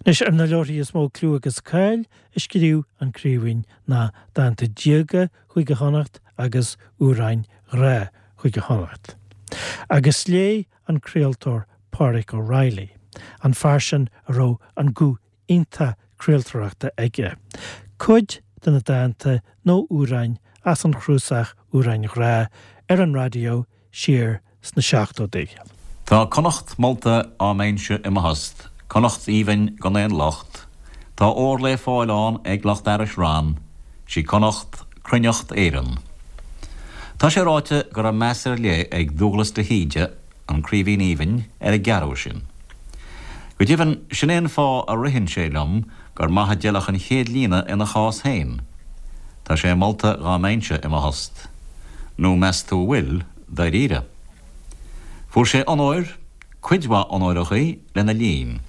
Anois, ar na leabharthaí is mó clú agus cáil a scríobh an Craoibhín ná Dánta Diaga Chúige Chonnacht agus Amhráin Ghrá Chúige Chonnacht. Agus léigh an craoltóir Pádraig O'Reilly, an fear sin a raibh an guth iontach craoltóireachta aige, cuid de na dánta nó amhráin as an chnuasach Amhráin Ghrá ar an raidió siar sna seachtóidí. Tá Connacht molta á mbeinnse i mo thost, Connacht aoibhinn gan aon locht, Tá ór lé fáil ann ag lucht fhearais rann, 'Sí Connacht cruithneacht Éireann. Tá sé ráite go raibh meas ar leith ag Dúghlas de hÍde, an Craoibhín Aoibhinn, ar an gceathrú sin. Go deimhin, sin é an fáth a ritheann sé liom gur maith a d'fheilfeadh an chéad líne ina chás féin. Tá sé molta dhá mbeinnse i mo thost. Nó meas tú an bhfuil, dáiríre? Fuair sé onóir, cuid mhaith onóireachaí, lena linn.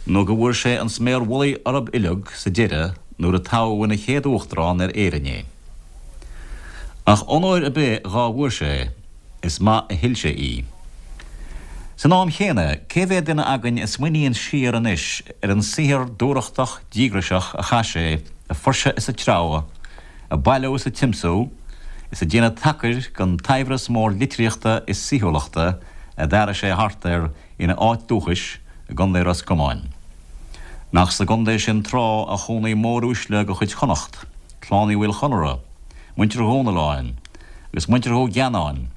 Nó go bhfuair sé an sméar mhullaigh orthub uileag sa deireadh nuair a toghadh ina chéad Uachtarán ar Éirinn é. Ach onóir ar bith dhá bhfuair sé, is maith a thuill sé í. San am chéanna, cé mhéad duine againn a smaoiníonn siar anois ar an saothar dúthrachtach díograiseach a chaith sé ag fuirseadh is ag treabhadh, ag bailiú is ag tiomsú, is ag déanamh tacair den tsaibhreas mór litríochta is saoithiúlachta a d'fhearaigh sé thart air ina áit dúchais i gContae Ros Comáin? Nach sa gcontae sin tráth a chónaigh móruaisle de chuid Chonnacht, Clann Uí Mhaoil Chonaire, muintir Dhomhnalláin, agus muintir Dhú Gheannáin,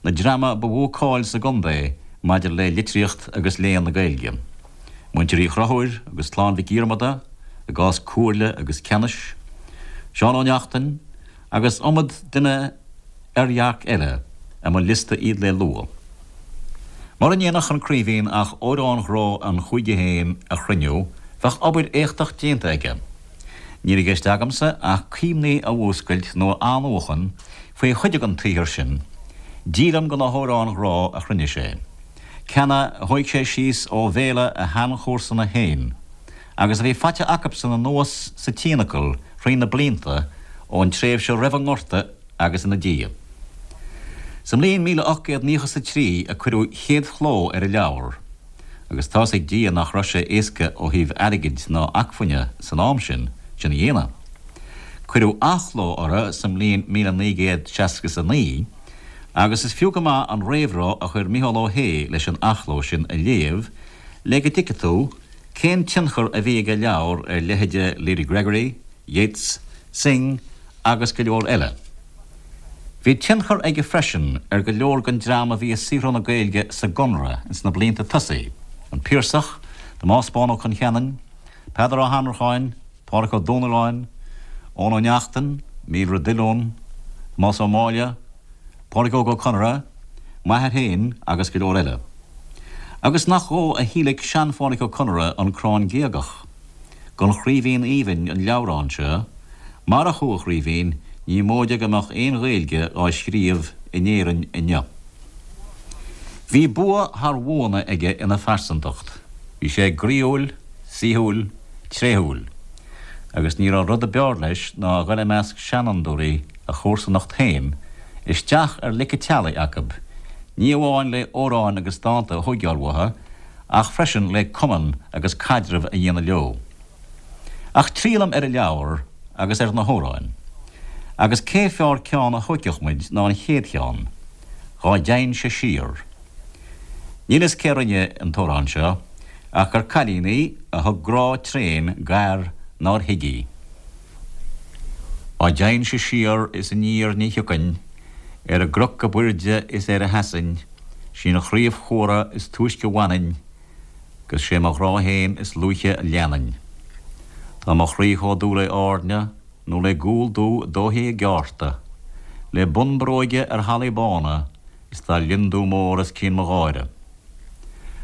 na dreama ba mhó cáil sa gcontae maidir le litríocht agus léann na Gaeilge, muintir Uí Chonchúir agus Clann Mhic Dhiarmada i gcás comhairle agus ceannais, Seán Ó Neachtain, agus iomad duine oirdhearc eile a mba liosta iad le lua. Mura ndéanfadh an Craoibhín ach amhráin ghrá an chúige féin a chruinniú, bheadh obair éachtach déanta aige. Níl i gceist agamsa ach cuimhní a mhúscailt nó a athnuachan faoi chuid den tsaothar sin, díolaim de na hamhráin ghrá a chruinnigh sé, ceanna a thóig sé síos ó bhéala a sheanchomharsana féin, agus a bhí faighte acubsan anuas sa tionacal thrí na blianta ón tréimhse roimh an nGorta agus ina diaidh. Sa mbliain 1893 a cuireadh chéad chló ar an leabhar. Agus tá's ag Dia nach raibh sé éasca ó thaobh airgid ná acmhainne san am sin, sin a dhéanamh. Cuireadh athchló orthu sa mbliain 1969 agus is fiú go maith an réamhrá a chuir Micheál Ó hAodha leis an athchló sin a léamh le go dtuigfidh tú cén tionchar a bhí ag a leabhar ar leithéide Lady Gregory, Yeats, Synge agus go leor eile. Bhí tionchar aige freisin ar go leor den dream a bhí ag saothrú na Gaeilge sa gConradh ins na blianta tosaigh, an Piarsach, Tomás Bán Ó Concheanainn, Peadar Ó hAnnracháin, Pádraic Ó Domhnalláin, Eoin Ó Neachtain, Míobhaire Diolún, Tomás Ó Máille, Pádraig Óg Ó Conaire, m'athair féin agus go leor eile. Agus nach dhó a thíolaic sean-Phádraic Ó Conaire an Crann Géagach? Gon Chraoibhín Aoibhinn an leabhrán seo, marach thú a Chraoibhín ní móide go mbeadh aon Ghaeilge á scríobh in Éirinn inniu. Bhí bua thar bhuanna aige ina phearsantacht. Bhí sé groíúil, saoithiúil, tréithiúil. Agus ní raibh rud a b'fhearr leis ná a dhul i measc seanfhondúirí a chomharsanacht féin, isteach ar lic an teallaigh acub, ní amháin le amhráin agus dánta a thóigeáil uathu, ach freisin le cumann agus caidreamh a dhéanamh leo. Ach triallaim ar an leabhar agus ar na hamhráin. Agus cé fearr ceann a thóigfeadh muid ná an chéad cheann, Dhá dteighinn-se siar. Níl fhios cé rinne an t-amhrán seo, ach gur cailín í a thug grá tréan d'fhear nár thuig í. Dá dteighinn-se siar is aniar ní thiocfainn, ar an gcnoc ab aoirde is ar a sheasainn, 'Sí an chraobh chumhra is túisce bhainfinn, 'gus sé mo ghrá fhéin is luaithe a leanfainn. Tá mo chroí chomh dubh le airne, nó le gual dubh dóithe i gceárta, le bun bróige ar hallaí bána, is tá lionndubh mór os cionn mo gháire.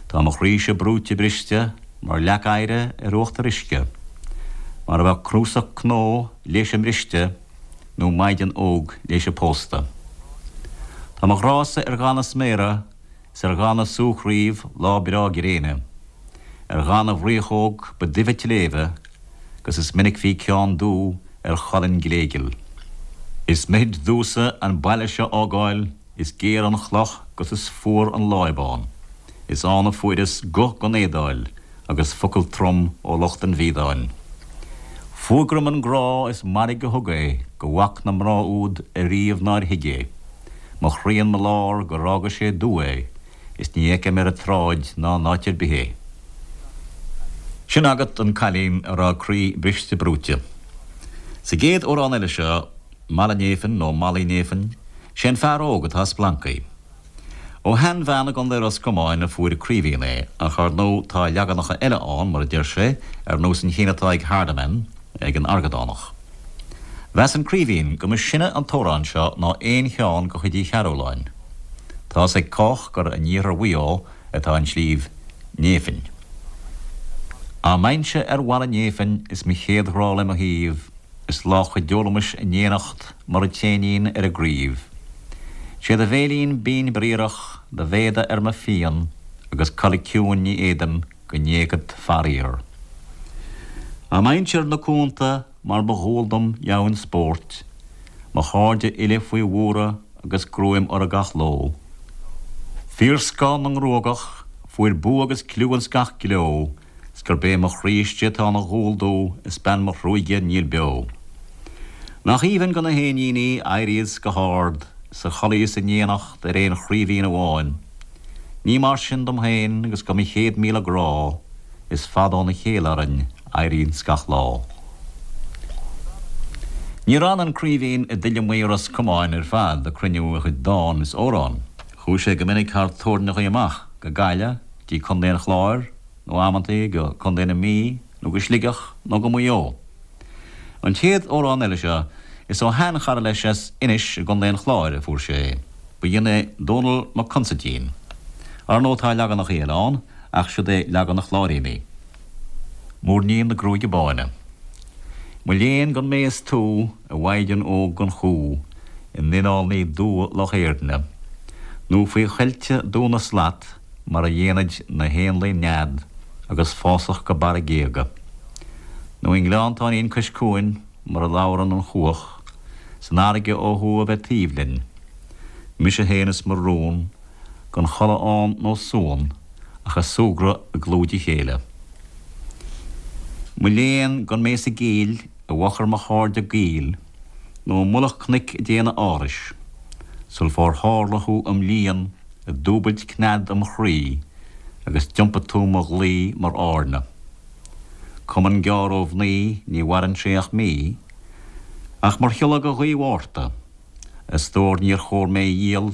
Tá mo chroíse brúite briste mar leac oighre ar uachtar uisce, mar a bheadh cnuasach cnó léise mbriste, nó maighdean óg léise pósta. Tá mo ghrása ar dhath na sméara 's ar dhath na súchraoibh lá breá gréine, ar dhath na bhfraochóg ba duibhe tsléibhe, 'gus is minic bhí ceann dubh ar cholainn ghléigeal. Is mithid domhsa an baile seo fhágáil, is géar an chloch 'gus is fuar an láib ann, is ann a fuaireas guth gon éadáil. agus focal trom ó lucht an bhiadáin. Fuagraim an grá is mairg a thug é go bhfac na mná úd ariamh nár thuig é. Mo chroí in mo lár gur fhága sé dubh é is ní fheicim ar an tsráid ná in áit ar bith é. Sin agat an cailín a raibh a croí briste brúite. Sa gcéad amhrán eile seo, Mala Néifinn nó Malaí Néifinn, sé an fear óg atá ag splancaigh. Ó sheanbhean i gContae Ros Comáin a fuair an Craoibhín é, ach ar ndóigh tá leaganacha eile ann, mar a deir sé, ar nós an chinn atá ag Hardiman, ag an Argadánach. Mheas an Craoibhín go mba sine an t-amhrán seo ná aon cheann de chuid Uí Chearúlláin. Tá's ag cách gur in iarthar Mhaigh Eo atá an sliabh Néifinn. Á mbeinnse ar mhala Néifinn is mo chéad ghrá le mo thaobh, Is lá chuideolaimis in éineacht mar an t-éinín ar an gcraobh. 'Sé do bhéilín binn bríorach, do mhéada ar mo phian, agus codladh ciúin ní fhéadaim go n-éagfad faraor. Á mbeinnse ar na cuanta mar ba dhual dom dheamhan spóirt, mo chairde uile faoi bhuaradh agus gruaim orthu gach ló. Fíorscoth na ngruagach, fuair bua agus cliú ins gach gleo, 's gurb é mo chroí istigh atá ina dhúil domh is bean mo thruaighe níl beo. Nach aoibhinn go na héiníní éiríos go hard 's a chodlaíos in éineacht ar aon chraoibhín amháin. Ní mar sin dom féin agus go mo 100,000 grá is fada óna chéile orainn éiríos gach lá. Níor fhan an Craoibhín i dtuilleamaí Ros Comáin ar fad ag cruinniú a chuid dán is amhrán. Chuaigh sé go minic thar tórainneachaí amach go Gaillimh, dtí Contae an Chláir, nó amantaí go Contae na Mí, nó go Sligeach, nó go Maigh Eo. An chéad amhrán eile seo, is ó sheanchara leis as Inis i gContae an Chláir a fuair sé é. B'in é Dónall Mac Consaidín. Ar ndóigh tá leaganachaí eile ann, ach siod é leagan na Chláiríní. Muirnín na Gruaige Báine. Mo léan gan mé is tú, a mhaighdean óg gan chú, i n-oileán dubha Loch Éirne, nó faoi choillte Dún na Slat, mar a dhéanaid na héanlaith nead agus fásach go barra géaga. Nó i ngleanntáinín cois cuain mar a labhrann an chuach, san fharraige ó thuaidh a bheith taobh linn. Mise féin is mo rún, gan chodladh ann nó suan, ach a' súgradh i gclúid a chéile. Mo léan gan mé sa gcill i bhfochair mo chairde gaoil, nó i mullach cnoic ag déanamh árais, sul fár tharla thú im líon ag dúbailt cnead im chroí agus d'iompaigh tú mo dhlaoi mar airne. Cumann gearr ó mhnaoi ní mhaireann sé ach mí, ach mar shiolla go ghaoth Mhárta, a stór níor chóir mé a dhíol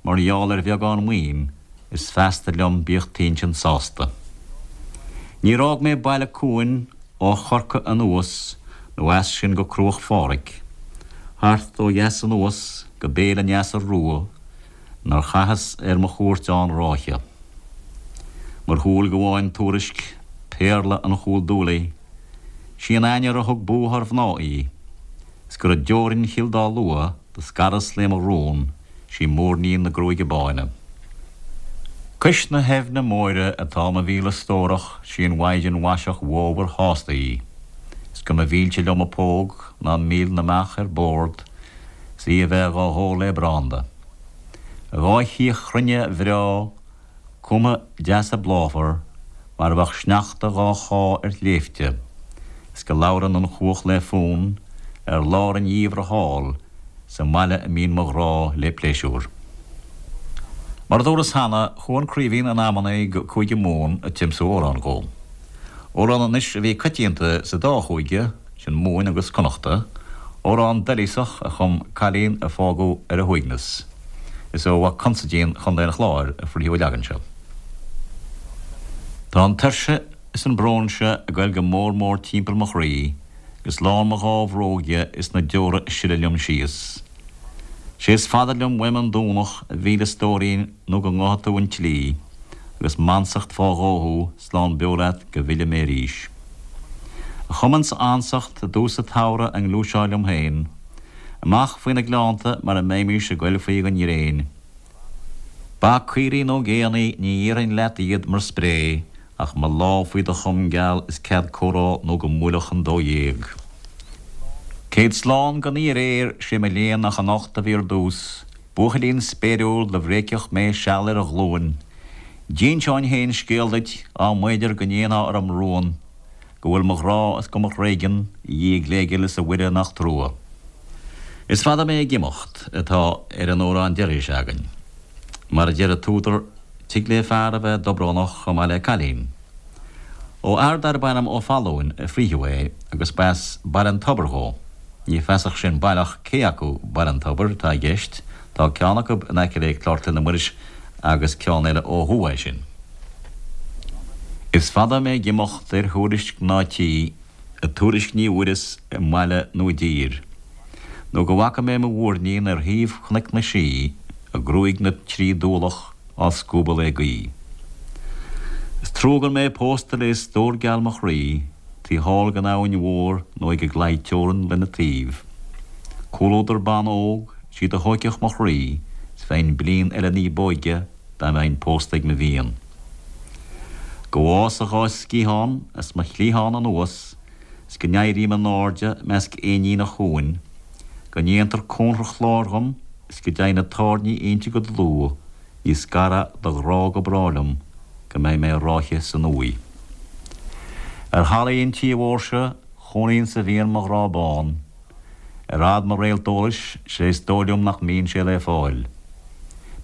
mar gheall ar bheagán maoin is feasta liom bíodh t'intinn sásta. Níor fhág mé baile cuain ó Chorcaigh anuas nó as sin go Cruach Phádraig, thart ó dheas anuas go Béal an Easa Rua nár chaitheas ar mo chuairt ann ráithe. Mar shúil ghabháin tuairisc péarla an Chúil Dúlaigh, sí an ainnir a thug bua thar mhná í, 's gur i dteorainn Chill Dá Lua do scaras léi mo rún, sí Muirnín na Gruaige Báine. Cois na haibhne móire atá mo mhíle stórach, sí an mhaighdean mhaiseach mhómhar shásta í, 's go mba mhilse liom a póg ná mil na mbeach ar bord, 's í a bheith dhá hól lé branda. A dhá chíoch chruinne bhreá, cumtha deasa bláfar, mar a bheadh sneachta dhá chá ar shléibhte, 's go labhrann an chuach lé fonn ar lár an gheimhridh thall sa mbaile a mbíonn mo ghrá lé pléisiúr. Mar a dúras cheana, chuaigh an Craoibhín in amannaí go Cúige Mumhan ag tiomsú amhrán dhó. Amhrán anois a bhí coitianta sa dá chúige, sin Mumhain agus Connachta, amhrán doilíosach a chum cailín a fágadh ar a huaigneas. Is ó Mhac Consaidín Chontae an Chláir a frítheadh an leagan seo. Tá an tuirse is an brón seo ag goil go mór mór timpeall mo chroí agus lán mo dhá bhróg dhe is na deora ag sileadh liom síos. 'Sé is fada liom uaim an Domhnach a mhíle stóirín nó go ngabhfaidh tú an tslí agus m'ansacht fá dhó thú slán beo leat go bhfille mé arís. A chumann 's a ansacht i dtús a' tsamhraidh a ngluaiseá liom féin Amach faoi na gleannta mar a mbeimís ag goil faoi gon ghréin. Ba, caoirigh nó géannaí ní iarrfainn leat iad mar spré ach mo lámh faoi do chom geal is cead comhrá nó go mbuailfeadh an 12. Céad slán gan í aréir, sé mo léan nach anocht a bhí ar dtús, buachaillín spéiriúil do bhréigfeadh mé seal ar a ghlúin. D'inseoinn féin scéal duit á mb'fhéidir go ndéanfá orm rún go bhfuil mo ghrá is go mo thréigean, a Dhia ghléghil is a Mhuire nach trua. Is fada mé ag imeacht atá ar an amhrán deiridh seo againn. Mar a deir an t-údar, tig le fear a bheith dobrónach chomh maith le cailín. Ó fhear darb ainm Ó Fallúin a frítheadh é agus ba as Baile an Tobair dhó. Ní feasach sin baileach cé acu Baile an Tobair atá i gceist, tá ceann acu in aice le Clár Clainne Muiris agus ceann eile ó thuaidh sin. Is fada mé ag imeacht ar thuairisc ná tí, a tuairisc ní bhfuaireas i mbaile nó i dtír, nó go bhfaca mé mo mhúirnín ar thaobh Chnoic na Sí, a gruaig 'na trí dualach á scuabadh le gaoith. Is trua gan mé pósta le stór geal mo chroí, taobh thall den abhainn mhór nó ag an gclaí teorann lena taobh. Comhluadar ban óg, sí do thóigfeadh mo chroí, 's bheinn bliain eile ní b'óige dá mbeinn pósta ag mo mhian. Go bhfása a dhá sciathán as mo chliathán anuas 's go n-éirím in airde measc éinín an chuain, go ndéantar cónra chláir dhom is go dteigh na tairní inti go dlúth, ní scarfaidh do ghrá go bráth liom go mbeidh mé ráithe san uaigh. Ar thallaí an tí mhóir seo chónaíonn 's a bhíonn mo ghrá bán. Ar fhad mo réalt eolais, 'sé is dóigh liom nach mbíonn sé le fáil.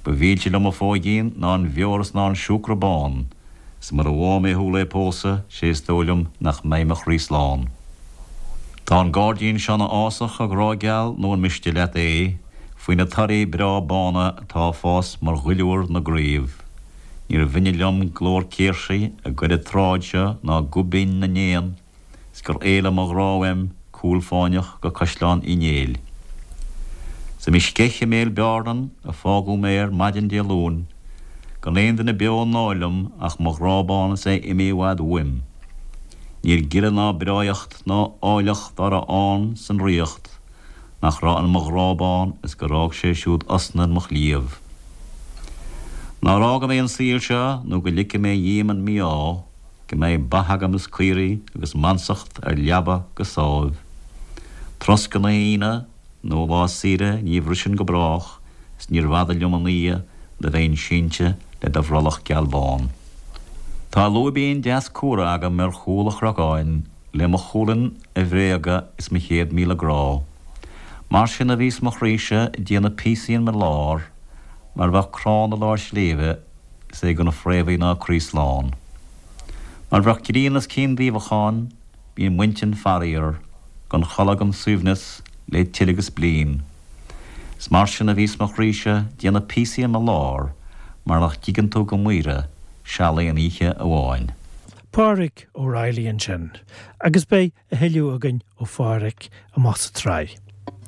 Ba mhilse liom a phóigín ná an bheoir is ná an siúcra bán, 's mura bhfágha mé thú le pósadh, 'sé is dóigh liom nach mbeidh mo chroí slán. Tá an gairdín seo 'na fhásach, a ghrá geal, nó an miste leat é, faoi na torthaí breá bána atá ag fás mar dhuilliúr na gcraobh. Níor bhinne liom glór céirsí ag goil an tsráid seo ná guth binn na n-éan, 's gur éalaigh mo ghrá uaim cúl fáinneach go Caisleán Uí Néill. 'S i mo sceich i mbéal beárnan a fágadh mé ar maidin Dé Luain, gan aon duine beo i ndáil liom ach mo ghrá bán is é imithe i bhfad uaim. Níl gile ná breáigheacht ná áilleacht dá raibh ann san ríocht nach raibh in mo ghrá bán is gur fhág sé siúd osna in mo chliabh. Nár fhága mé an saol seo nó go ligfidh mé dhíom an mí-ádh, Go mbeidh ba agam is caoirigh agus m'ansacht ar leaba go sámh. Troscadh na hAoine nó lá saoire ní bhrisfinn go brách is níorbh fhada liom an oíche do bheinn sínte le do bhrollach geal bán. Tá lúibín deas cumhra agam ar chúl a chnocáin le mo chulainn a bhréagadh is mo 100,000 grá. Mar sin a bhíos mo chroíse ag déanamh píosaí in mo lár mar bheadh crann i lár sléibhe is é gan fréamhaí ná croí slán. Mar bheadh grian os cionn duibheacháin, bíonn m'intinn faraor, gan chodladh gan suaimhneas, le tuilleadh agus bliain. Is mar sin a bhíos mo chroíse déanamh píosaí in mo lár, mar nach dtuigeann tú go maoire seal aon oíche amháin. Pádraic O'Reilly ansin, agus beidh a thuilleadh againn ó Phádraic amach sa tsraith.